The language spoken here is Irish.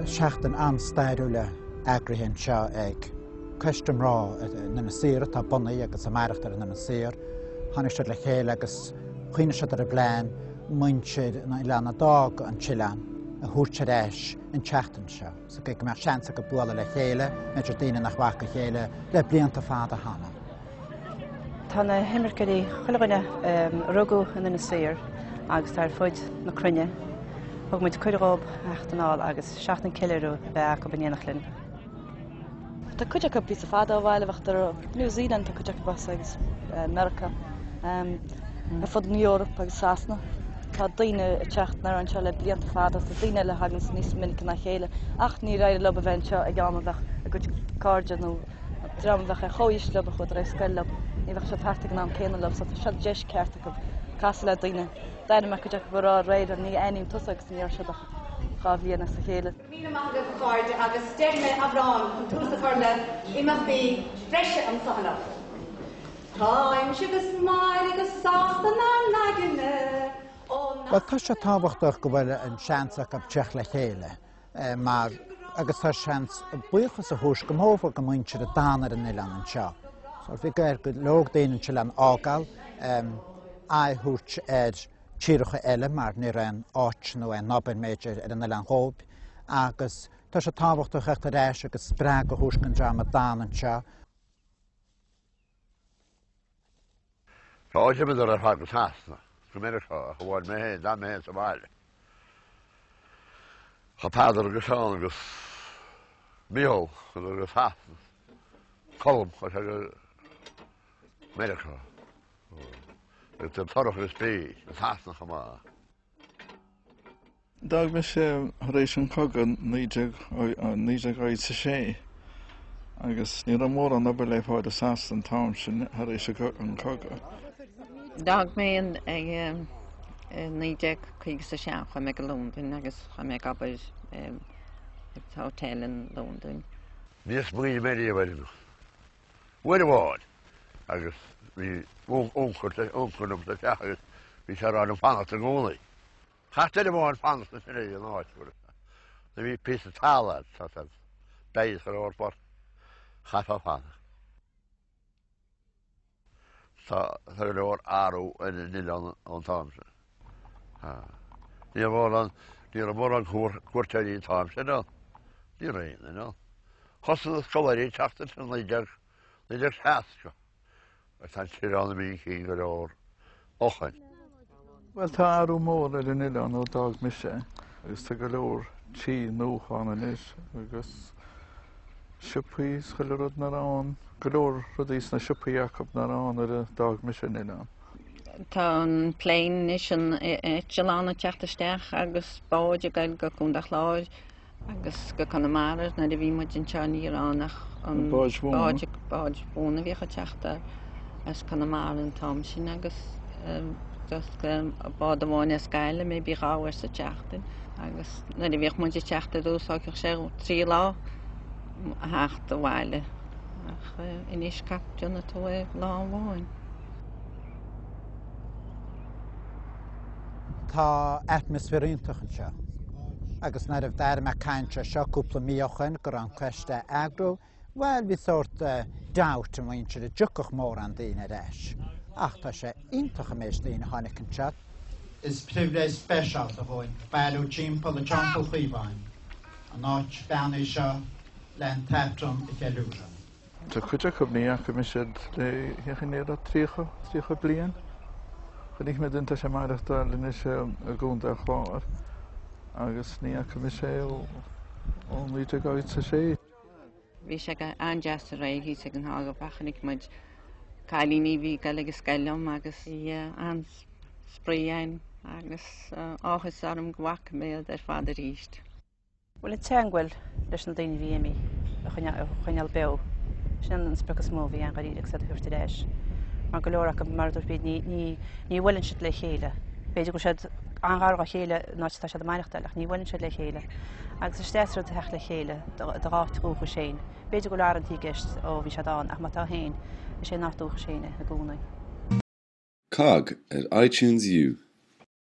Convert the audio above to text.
Tá seachtain an-stairiúil eagraithe anseo ag Coiste Mná in Inis Oírr atá bunaithe agus ag maireachtáil ar an Inis Oírr. Tháinig siad le chéile agus chuimhnigh siad ar an bplean muintir an oileáin a d'fhág an t-oileán a thabhairt ar ais an tseachtain seo sa gcaoi go mbeadh seans acu bualadh le chéile, b'fhéidir daoine nach bhfaca a chéile le blianta fada cheana. Tá na himirceoirí, chuile dhuine a rugadh in Inis Oírr agus atá ar fud na cruinne, thug muid cuireadh dhóibh theacht anall agus seachtain ceiliúradh a bheith acu in éineacht linn. Tá cuid acu píosa fada ó bhaile, bheadh New Zealand, tá cuid acu as agus Meiriceá, ar fud na Eorpa agus Sasana. Tá daoine ag teacht anoir anseo le blianta fada, tá daoine eile a thaganns níos minice ná a chéile ach níor éirigh leo a bheith anseo ag am a bheadh a gcuid cairde nó dream a bheadh ar chomhaois leo a chuadar ar scoil leo, ní bheadh siad thart ag an am céanna leo so tá seo deis ceart acu casadh le daoine. D'aithnigh mé cuid acu a raibh aréir, ní aithním tusa agus ní raibh siad ach 2 bhliain as a chéile. Míle maith agaibh a chairde agus déarfaidh mé amhrán chun tús a chur le imeachtaí breise anso anocht. Táimse agus Máire go sásta 'nár n-aigne ó nach. Bhuel tá sé tábhachtach go bhfuil an seans acu teacht le chéile mar agus tá seans buíochas a thabhairt go mórmhór go muintir a d'fhan ar an oileán anseo. So bhí ar go leor daoine an t-oileán a fhágáil, aghaidh a thabhairt ar tíreacha eile mar ní raibh aon áit nó aon obair b'fhéidir ar an oileán dhóibh agus tá sé tábhachtach theacht ar ais agus spreagadh a thabhairt don dream a d'fhan anseo. Tá d'imíodar ar fad go Sasana, go Meiriceá, ach amháin mé féin, d'fhan mé féin sa bhaile. Chuaigh Peadar agus Seán agus Mícheál, chuadar go Sasana, Colm, chuaigh sé go Meiriceá. Agus tá Torach agus Bríd i Sasana chomh maith. D'fhág mise tar éis an chogadh 1986 agus ní raibh mórán obair le fáil i Sasana an t-am sin tar éis an chogadh. D'fhág mé in 1957, chuaigh mé go Londain agus chuaigh mé ag obair sa hotel in Londain. Níor smaoinigh mé riamh ar imeacht. Uair amháin agus bhí uncail liom sa teach agus bhí sé ag rá liom fanacht i gcónaí. Chaith duine amháin fanacht ansin ag an áit nuair a bhí píosa talaimh agat beidh go leor chaithfeá fanacht. Tá go leor athrú ar an oileán ón t-am sin. Ní raibh mórán, ní raibh mórán cuairteoirí an t-am sin ann. Ní raibh aon duine ann. Thosaigh na scoláirí ag teacht ansin 1960 agus tá an t-oileán imithe chun cinn go leor ó shin. Bhuel, tá athrú mór ar an oileán ó d'fhág mise agus tá go leor tí nua ann anois agus siopaí is chuile rud nach raibh ann, go leor rudaí sna siopaí acu nach raibh ann nuair a d'fhág mise an oileán. Tá an plane anois, an eitleán ag teacht isteach agus báid ag goil go Contae an Chláir Agus go Conamara nuair a bhí muid anseo ní raibh ann ach an báid mhóna. Báid mhóna a bhíodh ag teacht as Conamara an t-am sin agus just bád amháin as Gaillimh maybe 2 uair sa tseachtain agus nuair a bhíodh muid ag teacht ar dtús thógfadh sé 3 lá a theacht abhaile ach anois déanann tú é lá amháin. Tá atmaisféar iontach anseo agus nuair a d'airigh mé caint ar seo cúpla mí ó shoin go raibh an coiste á eagrú, bhuel bhí sórt doubt i muintir an dtiocfadh mórán daoine ar ais. Ach tá sé iontach an méid daoine a tháinig anseo. Is pribhléid speisialta dhúinn bailiú timpeall i dTeampall Chaomháin, an áit beannaithe seo le an tAifreann a cheiliúradh. Tá cuid acu, ní fhaca mise iad le cén chaoi 30, 30 bliain. Chonaic mé duine atá sé ag maireachtáil anois i gContae an Chláir agus ní fhaca mise é ó 1986. Bhí sé go an-deas aréir thíos ag an Hágabach, chonaic muid cailíní a bhí ag dul ag an scoil liom agus bhí an-spraoi againn agus áthas orm go bhfaca mé iad ar fad arís. Bhuel, an teagmháil leis na daoine a bhí imithe a choinneáil beo, sin an sprioc is mó a bhí ann dháiríre agus iad a thabhairt ar ais. Mar go leor acu, mar a dúirt Bríd, ní ní bhuaileann siad le chéile. B'fhéidir go bhfuil siad an-ghar dá chéile in áit atá siad ag maireachtáil ach ní bhuaileann siad le chéile. Agus is deas rud a theacht le chéile do dh'áit dhúchais féin. B'fhéidir go bhfuil arantí i gceist ó bhí siad ann ach má tá féin, is é an áit dúchais féin é i gcónaí. COGG ar iTunes U.